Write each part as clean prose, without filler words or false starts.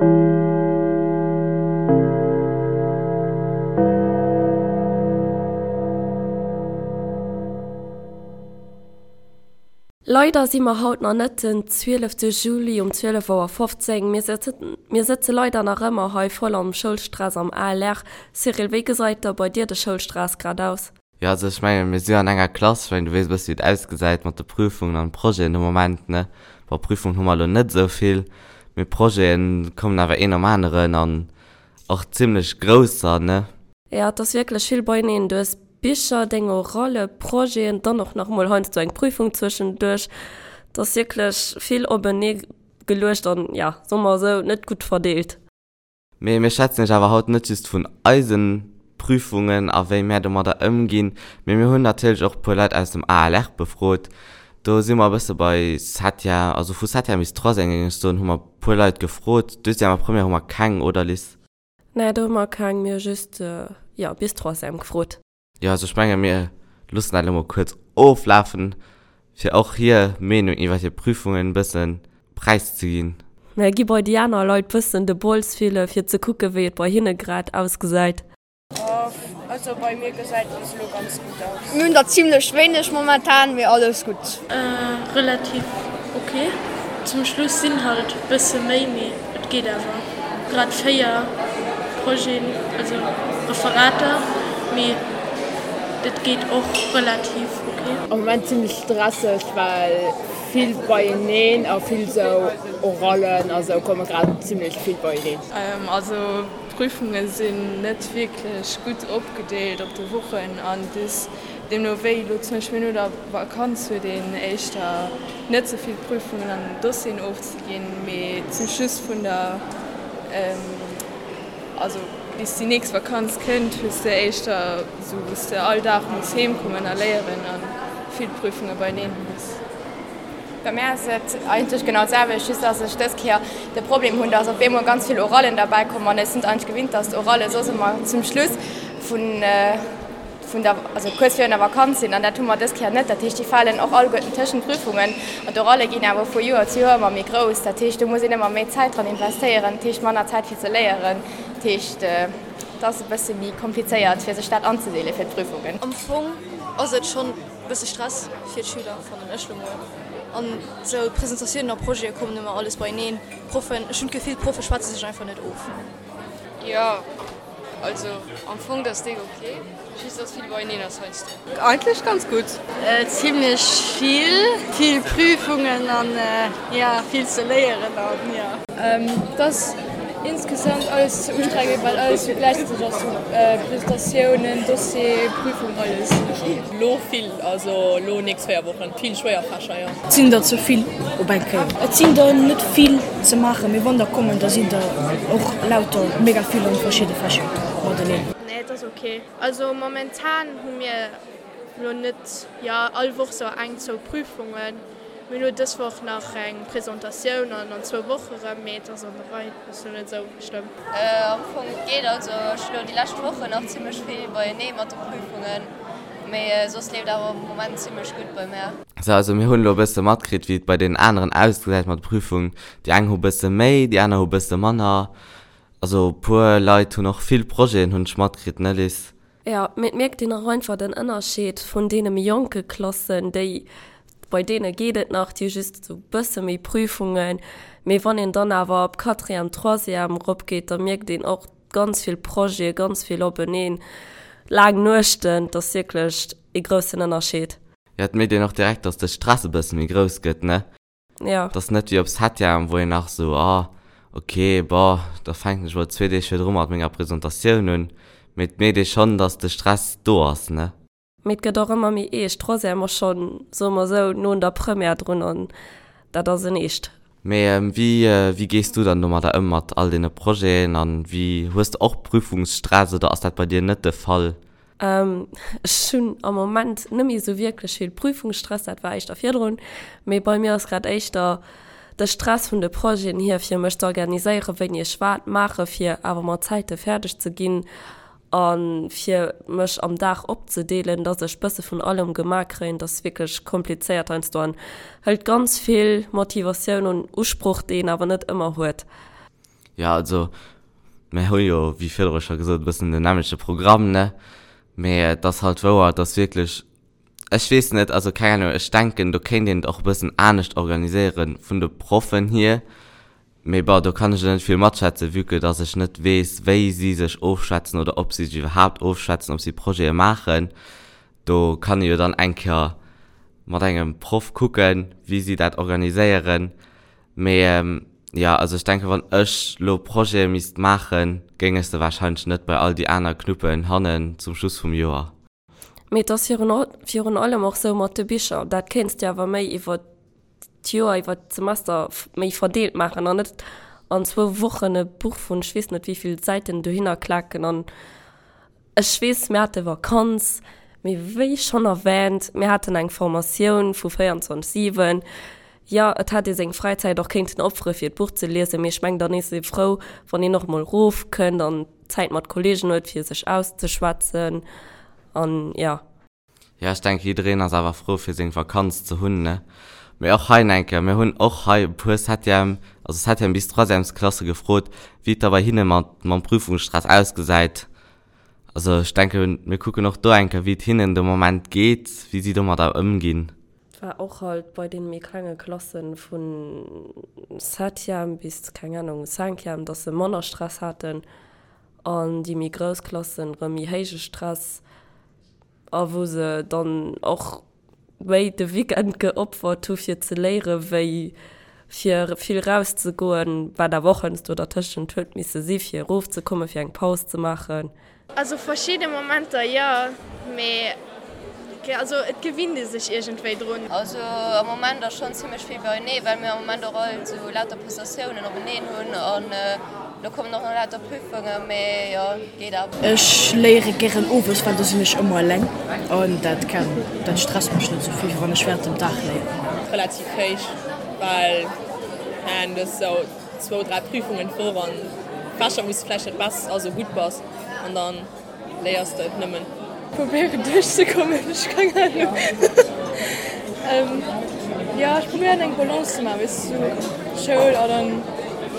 Leider si mer haut nach net den 12 Juli um 12 Auer 15. Mir mir sëtze leider nach ëmmer hei voll am Schoulstress am ALR. Cyril, wéi gesait da bei dir de Schoulstress grad aus? Jo, also ech mengen, mir si an enger Klass, ech mengen, du weess e bësse wéi et ausgesäit mat de Prüfungen an Projeten de Moment, ne? Bon, Prüfungen hu mer elo net esou vill, mee Projeten kommen awer een nom aneren an och zimlech grousser, ne? Jo, et ass wierklech vill beieneen. Du hues Bicher, deng Oralle, Projeten, dann och nach emol heiansdo eng Prüfung zwëschenduerch. Et ass wierklech vill openee geluecht an, jo, soe mer esou, net gutt verdeelt. Mee mir schwätzen iech awer haut net just vun eise Prüfungen a wéi mär domadder ëmginn, mee mir hunn natierlech och e puer Leit aus dem ALR befrot. Do si mer e bësse bei Septième, also vu Septième bis Troisième géing ech soen, hu mer e puer Leit gefrot. Deuxième a Première hu mer keng, oder Liz? Nee, do hu mer keng, mir hu just, jo, bis Troisième gefrot. Jo, also ech menge mir loossen dat elo mol kuerz oflafen, fir och hir Meenung iwwer hir Prüfungen e bësse präiszeginn. Mir gi bei déi aner Leit bëssen de Bols fille fir ze kucke wéi et bei hinne grad ausgesäit. Also bei mir gesäit bis elo ganz gutt aus. Mir hunn der zimlech wéineg momentan, mee alles gutt. Relativ ok. Zum Schluss sinn halt bësse méi, mee et geet awer. Grad 4 Projeten, also Referater, mee et geet och relativ ok. Am Moment zimlech stresseg, well vill beieneen a vill sou Orallen a sou komme grad zimlech vill beieneen. Also d'Prüfunge sinn net wierklech gutt opgedeelt op de Wochen an des deemno wéi elo zum Beispill no der Vakanz huet een éischter net sou vill Prüfungen an Dossieren ofzeginn, mee zum Schluss vun der, also bis déi nächst Vakanz kënnt, hues de éischter sou wou s de all Dag muss heem kommen a léieren a vill Prüfunge beieneen hues. Bei mär ass et eigentlech genau d'selwecht, just dass ech dës Kéier de Problem hunn, dass op eemol ganz vill Orallen derbäi kommen an ech sinn et eigentlech gewinnt, dass d'Oralle soss ëmmer zum Schluss vun vun der, also kuerz virun der Vakanz sinn an dat hu mer dës Kéier net. Dat heescht, déi falen och alleguerten tëschent d'Prüfungen an d'Oralle ginn awer vu Joer zu Joer ëmmer méi grouss. Dat heescht, do muss een ëmmer méi Zäit dran investéieren, dat heescht manner Zäit fir ze léieren. Dat heescht, et ass e bësse méi komplizéiert fir sech dat anzedeele fir d'Prüfungen. Am Fong ass et schonn e bësse Stress fir d'Schüler, fannen ech lo mol. An esou Presentatiounen a Projete kommen ëmmer alles beieneen. D'Proffen, ech hunn d'Gefill, d'Proffe schwätze sech einfach net of. Jo, also am Fong dat ass déck ok, just dass vill beieneen ass heiansdo. Eigentlech ganz gutt. Zimlech vill, vill Prüfungen an jo vill ze léieren an jo. Et ass insgesamt alles ze ustrengend well alles sou gläichzäiteg ass, sou Presentatiounen, Dossier, Prüfung, alles. Lo vill, also lo nächst 4 Wochen vill schwéier Fächer, jo. Et sinn der ze vill op eng Kéier. Et sinn der net vill ze maachen, mee wann der kommen, da sinn der och lauter mega vill an verschidde Fächer mateneen. Nee, et ass ok. Also momentan hu mir lo net, jo all Woch sou eng, zwou Prüfungen. Mir hunn lo dës Woch nach eng Presentatioun an an zwou Woche rëm, mee et ass an der Rei, ass lo net sou schlëmm. Am Fong et geet, also ech hu lo déi lescht Wochen nach zimmlech vill beienee mat de Prüfungen, mee soss leeft awer am Moment zimmlech gutt bei mär. Sou, also mir hunn elo e bësse matkritt, wéi et bei deenen aneren ausgesäit mat de Prüfungen. Déi eng hu bësse méi, déi aner hu bësse manner. Also e puer Leit hunn och vill Projeten, hunn ech matkritt, ne Liz? Jo, mee et mierkt een och einfach den Ënnerscheed vun deene méi jonke Klassen, déi, bei deene geet et nach, déi hu just esou e bësse méi Prüfungen, mee wann een dann awer op Quatrième, Troisième eropgeet, da mierkt een och ganz vill Projete, ganz vill openeen, laang Nuechten, et ass wierklech ee groussen Ënnerscheed. Jo, et mierkt een och direkt, dass de Stress e bësse méi grouss gëtt, ne? Ja. Et ass net wéi op Septième, wou een nach esou, ah, ok, bon, da fänken ech mol zwee Deeg virdru mat menger Presentatioun un. Mee et mierkt ee schonn, dass de Stress do ass, ne? Mee et gëtt och ëmmer méi eescht. Troisième ass schonn, soe mer esou, no un der Première drun an dat ass en Eescht. Mee wéi, wéi gees du dann domadder ëm mat all deene Projeten an wéi, hues de och Prüfungsstress oder ass dat bei dir net de Fall? Ech hunn am Moment net méi esou wierklech vill Prüfungsstress, dat war éischter virdrun, mee bei mir ass grad éischter de Stress vun de Projeten hier, fir mech ze organiséieren, wéini ech wat maache fir awer mat Zäite fäerdeg ze ginn a fir mech am Dag opzedeelen, dass ech bësse vun allem gemaach kréien. Dat ass wierklech komplizéiert heiansdo an hëlt ganz vill Motivatioun un Usproch, déi een awer net ëmmer huet. Jo, also mir hu jo, wéi virdru scho gesot, e bëssen den nämmlechte Programm, ne? Mee et ass halt wouer, dass wierklech, ech weess net, also keng Ahnung, ech denken, do kéint een et och e bëssen anescht organiséiere vun de Proffen hier. Mee bon, do kann ech elo net vill matschwätzen, vue que dass ech net weess, wéi si sech ofschwätzen oder ob si sech iwwerhaapt ofschwätzen, ob si Projete maachen. Do kann ee jo dann eng Kéier mat engem Proff kucken, wéi si dat organiséieren. Mee jo, also ech denken, wann ech lo Projete misst maachen, géing ech se warscheinlech net bei all déi aner knuppen hannen zum Schluss vum Joer. Mee et ass virun allem och sou mat de Bicher, dat kéints de awer méi iwwer d'Joer, iwwer d'Semester méi verdeelt maachen an net an zwou Wochen e Buch vun ech weess net wéivill Säiten dohinner klaken. An ech weess, mir hate Vakanz, mee wéi schonn erwähnt, mir haten eng Formatioun vu 24, 7. Jo, et hätt ee seng Fräizäit och kéinten opfere fir d'Buch ze liesen, mee ech meng dann is ee frou, wann een och mol rofkënnt an Zäit mat Kollegen huet fir sech auszeschwätzen an jo. Jo, ech denke jiddereen ass awer frou fir seng Vakanz ze hunn, ne? Mee och hei enke, mir hunn och hei e puer Septième, also Septième bis Troisièmesklasse gefrot, wéi et da bei hinne mat mam Prüfungsstress ausgesäit. Also ech denke mir kucken och do enke wéi et hinnen de Moment geet, wéi si domadder ëmginn. War och halt bei den méi klenge Klassen vun Septième bis, keng Ahnung, Cinquième, dass se manner Stress haten an déi méi grouss Klassen rëm méi héije Stress a wou se dann och méi de Weekend geopfert hu fir ze léiere wéi fir vill rauszegoen, wat awer och heiansdo dertëschent huet misse si fir erofzekommen, fir eng Paus ze maachen. Also verschidde Momenter jo, mee also et gewinnt ee sech iergendwéi drun. Also am Moment ass schonn zimmlech vill beienee, well mir am Moment och all esou lauter Prestatiounen openeen hunn an lo kommen och nach lauter Prüfungen, mee jo, geet awer. Ech léiere gären owes, well do sinn ech ëmmer eleng an dat kann, dat stresst mech net esou vill, wéi wann ech während dem Dag léieren. Relativ héich, well du hues esou zwou, dräi Prüfungen d'Woch an Fächer wou s de vläicht net bess, also gutt bass an dann léiers de et nëmmen. Probéieren duerchzekommen, ech keng Ahnung. Jo ech probéieren eng Balance ze maachen, weess du, Schoul a dann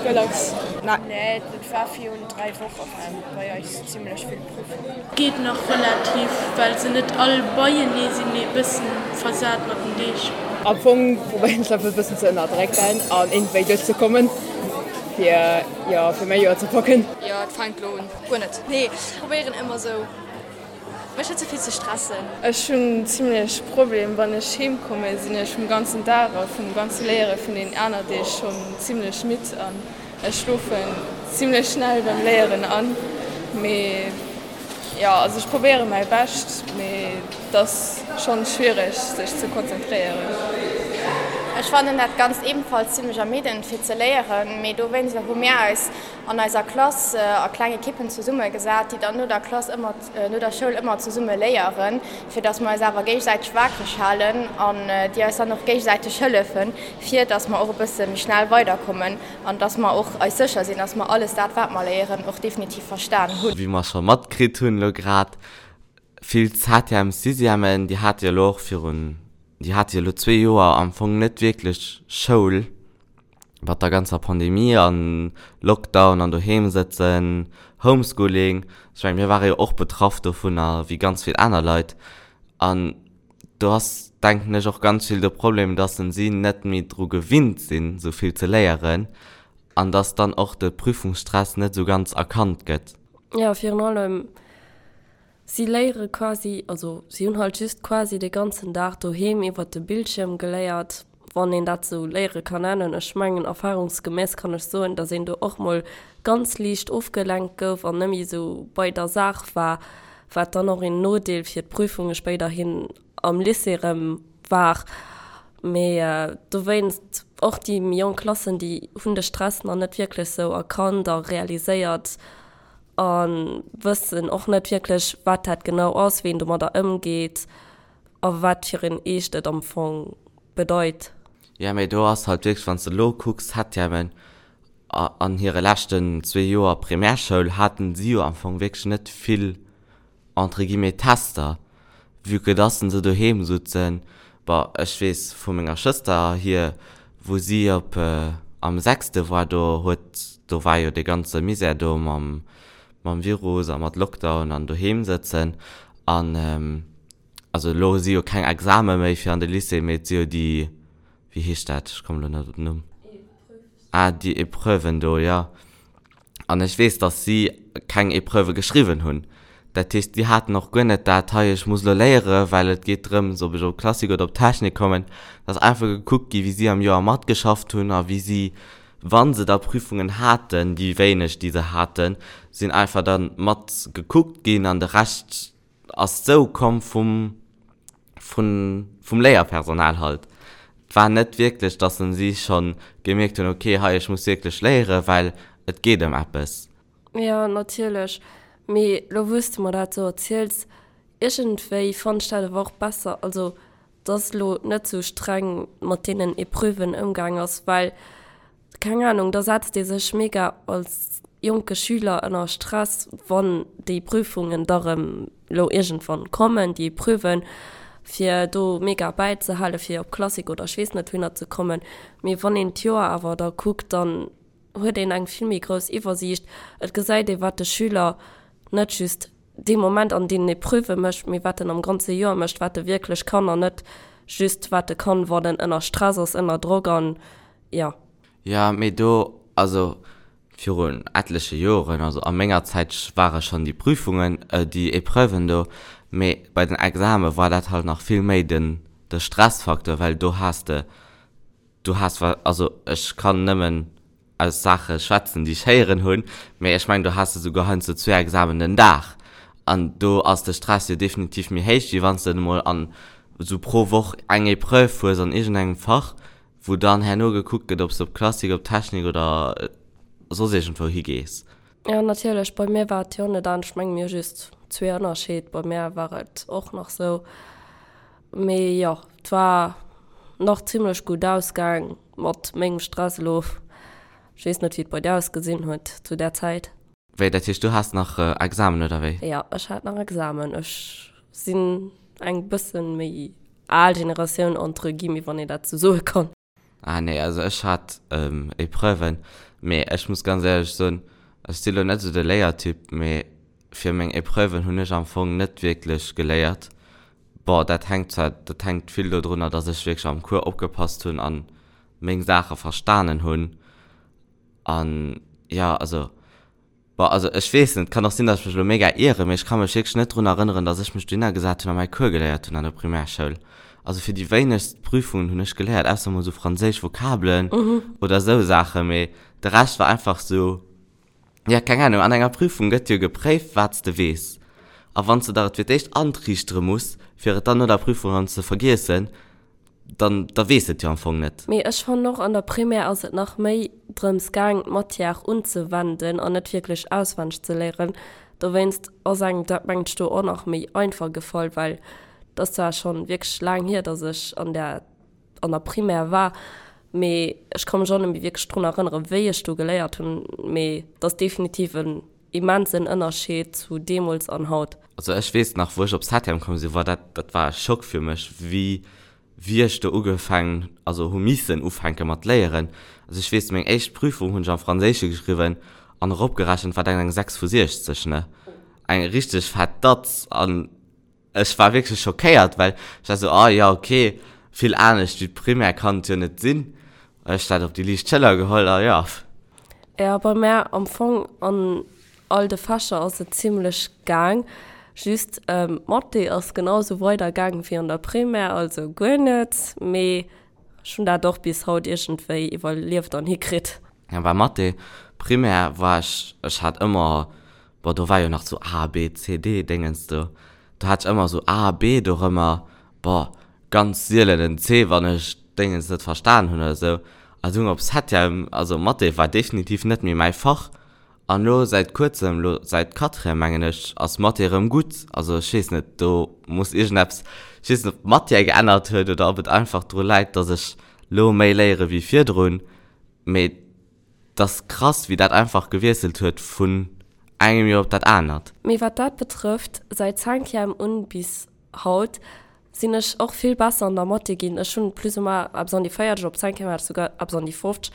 relax. Nee, et war virun 3 Woche waren bei eis zimlech vill Prüfungen. Geet nach relativ, well se net all beienee sinn, mee e bëssen versat mat den Deeg. Am Fong probéieren ech einfach e bëssen ze ënnerdrécken an iergendwéi duerchzekommen, fir, jo, fir mäi Joer ze packen. Jo, et fänkt lo un. Guer net, nee. Probéieren ëmmer sou mech net ze vill ze stressen. Ech hunn zimlech Problem, wann ech heem kommen, sinn ech vum ganzen Dag a vum ganze Léiere vun den aner Deeg schonn zimlech midd an Ech schlofen zimlech schnell beim Léieren an, mee jo, also ech probéieren mäi Bescht, mee et ass schonn schwiereg sech ze konzentréieren. Ech fannen dat Ganzt ebenfalls zimlech ermiddend fir ze léieren, mee dowéinster hu mir eis an eiser Klass a kleng Ekippen zesumme gesat, déi dann no der Klass ëmmer, no der Schoul ëmmer zesumme léieren, fir dass mer eis awer géigesäiteg waakreg halen an déi eis dann och géigesäiteg hëllefen, fir dass mer och e bësse méi schnell weiderkommen. An dass mer och eis sécher sinn, dass mer alles dat, wat mer léieren, och definitiv verstan hunn. Wéi mer scho matkritt hunn elo grad, vill Septièmes, Sixièmen, déi hate jo elo och virun, déi hate jo elo zwee Joer am Fong net wierklech Schoul, mat der ganzer Pandemie an Lockdown an doheem sëtzen, Homeschooling. Ech mengen, mir ware jo och betraff dovunner, wéi ganz vill aner Leit. An do ass, denken ech, och ganz vill de Problem, dass si net méi dru gewinnt sinn, esou vill ze léieren an dass dann och de Prüfungsstress net esou ganz erkannt gëtt. Jo, virun allem, si léiere quasi, also si hunn halt just quasi de ganzen Dag doheem iwwert de Bildschierm geléiert, wann een dat esou léiere kann nennen. Ech mengen, erfahrungsgemäss kann ech soen, dass een do och mol ganz liicht ofgelenkt gouf an net méi esou bei der Saach war, wat dann och een Nodeel fir d'Prüfunge spéiderhin am Lycée erëm war. Mee dowéinst och déi méi jonk Klassen, déi hunn de Stress nach net wierklech sou erkannt a realiséiert a wëssen och net wierklech, wat dat genau ass, wéi een domadder ëmgeet a wat fir een Eescht et am Fong bedeit. Jo, mee do ass halt wierklech, wann s de elo kucks, Septièmen, An hire leschten zwee Joer Primärschoul haten si jo am Fong wierklech net vill entre guillemets Tester, vue que dass se doheem sutzen. Bon, ech weess vu menger Schwëster hier, wou si op. am sechste war, do huet, do war jo dee ganze Misär do mam, mam Virus a mat Lockdown an doheem sëtzen an also elo si jo keng Exame méi fir an de Lycée, mee et si jo déi, wéi heescht dat, ech kommen elo net op den Numm, ah déi Epreuven do, jo. An ech weess, datt si keng Epreuvë geschriwwen hunn. Dat heescht, si haten och guer net dat, hei ech muss elo léieren, well et geet drëms, ob ech op Klassik oder op Technik kommen. Et ass einfach gekuckt gi wéi si am Joer matgeschafft hunn a wéi si, wa se da Prüfungen haten, déi wéineg déi se haten, sinn einfach da mat gekuckt ginn an de Rescht ass sou komm vum vun vum Léierpersonal halt. Et war net wierklech, dass en si schonn gemierkt hunn, ok hei ech muss wierklech léieren, well et geet ëm eppes. Jo natierlech, mee lo wou s de mer dat sou erziels, iergendwéi fannen ech dat awer och besser, also dass lo net sou streng mat deenen Epreuven ëmgaang ass, well Keng Ahnung, da setzt ee sech mega als jonke Schüler ënner Stress, wann déi Prüfungen da rëm lo iergendwann kommen, déi Epreuven, fir do mega bäizehalen, fir op Klassik oder ech weess net wouhinner ze kommen. Mee wann een d'Joer awer da kuckt, dann huet een eng vill méi grouss Iwwersiicht. Et gesäit ee wat de Schüler net just dee Moment an deenen Epreuve mécht, mee wat en am ganze Joer mécht, wat e wierklech kann an net just wat e kann, wann en ënner Stress ass, ënner Drock an jo. Jo, mee do, also virun etleche Joren, also a menger Zäit ware schonn déi Prüfungen, déi Epreuven do, mee bei den Exame war dat halt nach vill méi den de Stressfaktor, well do has de, du has, also ech kann nëmmen aus Saache schwätzen, déi ech héieren hunn, mee ech mengen, do has de souguer heiansdo zwee Examen den Dag an do ass de Stress jo definitiv méi héich, wéi wann s de emol an esou pro Woch eng Epreuve hues an iergendengem Fach, wou dann herno gekuckt gëtt, ob s de op Klassik, op Technik oder soss iergendwou higees. Jo, natierlech, bei mir war et jo net anescht. Ech menge mir hu just zwee Ënnerscheed. Bei mär war et och nach sou. Mee jo, et war nach zimlech gutt ausgaang mat mengem Stress elo. Ech weess net, wéi et bei dir ausgesinn huet zu där Zäit. Wéi, dat heescht, du has nach Examen, oder wéi? Jo, ech hat nach Examen. Ech sinn eng bëssen méi al Generatioun entre guillemets, wann een dat sou soe kann. Ah nee, also ech hat Epreuven, mee ech muss ganz éierlech soen, ech si lo net esou de Léiertyp, mee fir meng Epreuven hunn ech am Fong net wierklech geléiert. Bon, dat hänkt zwar, dat hänkt vill dodrunner, dass ech wierklech am Cours opgepasst hunn an meng Saache verstanen hunn an jo, also Bon, also ech weess net, kann och sinn, datt ech mech elo mega ieren, mee ech ka mech wierklech net drun erënneren, datt ech mech dohinner gesat hunn a mäi Cours geléiert hunn an der Primärschoul. Also fir déi wéinegst Prüfungen hunn ech geléiert, ausser mol esou franséisch Vokabelen oder esou Saachen, mee de Rescht war einfach esou, jo, keng Ahnung, an enger Prüfung gëtt jo gepréift, wat s de weess. A wann s de der et fir d'éischt antriichtere muss, fir et dann no der Prüfung erëm ze vergiessen, dann da weess et jo am Fong net. Mee ech fannen och, an der Primaire ass et nach méi drëms gaang d'Matière unzewenden an net wierklech auswenneg ze léieren. Dowéinst ass engem dat mengt ech do och nach méi einfach gefall, well et ass zwar schonn wierklech laang hier, dass ech an der an der Primaire war, mee ech ka mech och net méi wierklech drun erënneren, wéi ech do geléiert hunn. Mee et ass definitiv en immensen Ënnerscheed zu deemools an haut. Also ech weess nach, wou ech op Septem komm sinn, war dat, dat war e Schock fir mech, wéi, wéi ech do ugefaangen, also hu missen ufänke mat léieren. Also ech weess, meng éischt Prüfung hunn ech am Franséische geschriwwen an eropgerechent war dat eng 6 vu 60, ne? Eng richteg fett Datz an Ech war wierklech schockéiert, well ech war sou, ah jo, ok, vill anescht wéi d'Primaire kann et jo net sinn. Ech dat op déi liicht Schëller geholl a jo. Jo, bei mär am Fong an all de Fächer ass et zimlech gaang, just Mathé ass genau sou weider gaang wéi an der Primaire, also guer net, mee ech hunn dat och bis haut iergendwéi iwwerlieft an hikritt. Jo, bei Mathé, Primaire war ech, ech hat ëmmer Bon, do war jo nach sou A, B, C, D Déngens do. Do hat ech ëmmer sou A, B dorëmmer. Bon, ganz sielen en C, wann ech Déngens net verstan hunn oder sou. A dunn op Septième, also Mathé war definitiv net méi mäi Fach. An lo säit kuerzem, lo säit Quatrième mengen ech, ass Mathé erëm gutt. Also ech weess net, do muss iergendeppes, ech weess net, ob d'Matière geännert huet oder ob et einfach dru läit, dass ech lo méi léiere wéi virdrun. Mee T'ass krass wéi dat einfach gewiesselt huet vun engem Joer op dat anert. Mee wat dat betrëfft, säit Cinquième un bis haut sinn ech och vill besser an der Mathé ginn. Ech hunn plus ou moins eppes an déi 40, op Cinquième hat ech souguer eppes an déi 50.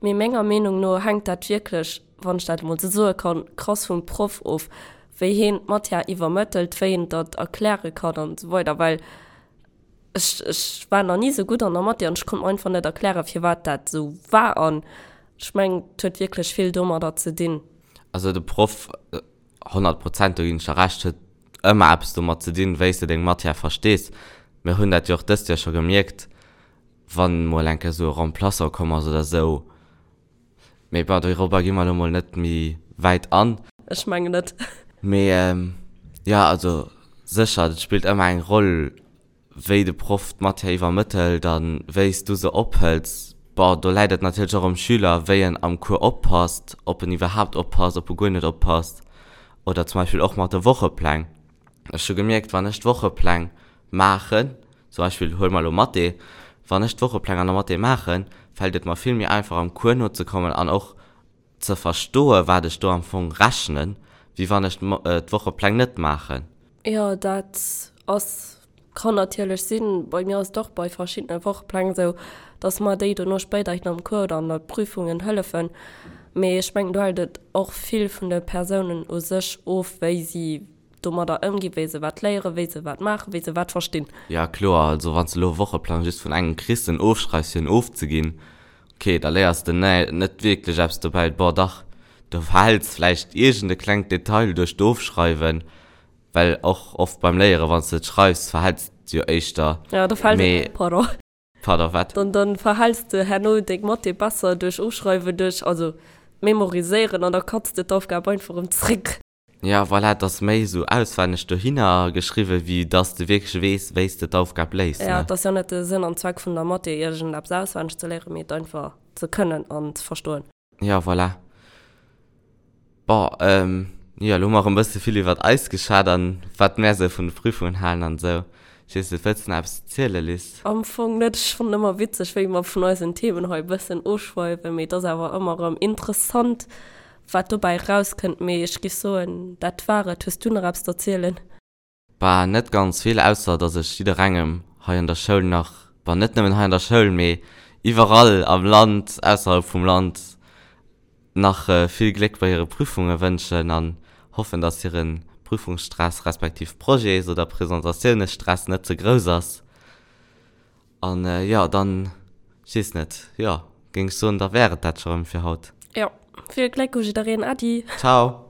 Mee menger Meenung no hänkt dat wierklech, wann ech dat emol esou soe kann, krass vum Proff of, wéi heen d'Matière iwwermëttelt, wéi en dat erkläre kann an esou weider. Well ech, ech war nach ni esou gutt an der Mathé an ech konnt mer einfach net erklären, firwat dat esou war. An ech mengen, et huet wierklech vill domadder ze dinn. Also de Proff, 100 Prozent, do ginn ech der Recht, huet ëmmer eppes domat ze dinn, wéi s de deng Matière verstees. Mir hunn dat jo och dëst Joer scho gemierkt, wann mol eng Kéier esou e Remplaçant komm ass oder esou. Mee bon, dorobber gi mer elo mol net méi wäit an. Ech mengen net. Mee jo, also sécher, et spillt ëmmer eng Roll, wéi de Proff d'Matière iwwermëttelt a wéi s du se ophëls. Bon, do läit et natierlech och um Schüler, wéi en am Cours oppasst, ob en iwwerhaapt oppasst, ob e guer net oppasst. Oder zum Beispill och mat de Wochepläng. Ech hu gemierkt, wann ech d'Wochepläng maachen, zum Beispill huele mer elo Mathé, wann ech d'Wochepläng an der Mathé maachen, fält et mer vill méi einfach am Cours nozekommen an och ze verstoen, wat ech do am Fong rechnen, wéi wann ech d'Wochepläng net maachen. Jo, dat ass, kann natierlech sinn. Bei mir ass et och bei verschiddene Wochepläng esou, dass mer déi dono spéiderhin am Cours oder an der Prüfungen hëllefen. Mee ech mengen, do hält et och vill vun de Persounen u sech of, wéi si domadder ëmginn, wéi se wat léieren, wéi se wat maachen, wéi se wat verstinn. Jo, kloer. Also wann s de elo e Wocheplang just vun engem kriss, en ofschreifs fir en ofzeginn, ok, da léiers de net wierklech eppes dobäi. Bon, dach, du verhäls vläicht iergend e klengt Detail duerch d'Ofschreiwen, well och oft beim Léieren, wann s de et schreifs, verhäls de jo éischter. Jo, da fält et, pardon. Pardon, wat? Dann, dann verhäls de herno deng Mathé besser duerch Ofschreiwen, duerch, also Memoriséieren an da kanns de d'Aufgab einfach erëm zréck. Ja, voilà, et ass méi esou auswenneg dohinner geschriwwen, wéi dass de wierklech weess, wéi s de d'Aufgab léis, ne? Ja, et ass jo net de Sënn an Zweck vun der Mathé, iergendeppes auswenneg ze léieren, mee et einfach ze kënnen an ze verstoen. Ja, voilà. Bon, jo, elo hu mer erëm e bësse vill iwwert eis geschwat an wat mär esou vun de Prüfungen halen an esou. Ech weess net, wëlls de nach eppes zielen, Liz? Am Fong net. Ech fannen ëmmer witzeg, wéi mer vun eisen Themen hei e bëssen ofschweiwen, mee et ass awer ëmmer erëm interessant, Wat dobäi erauskënnt, mee ech giff soen, dat war et. Hues du nach eppes z'erzielen? Bah, net ganz vill, ausser dass ech jidderengem hei an der Schoul nach, bah, net nëmmen hei an der Schoul, mee iwwerall am Land, ausserhalb vum Land, nach vill Gléck bei hire Prüfunge wënschen an hoffen, dass hire Prüfungsstress respektiv Projets oder Presentatiounesstress net ze grouss ass. An jo, dann, ech weess net, jo, géing ech soen, da wär et dat scho rëm fir haut. Jo, vill Gléck u jiddereen. Äddi! Ciao!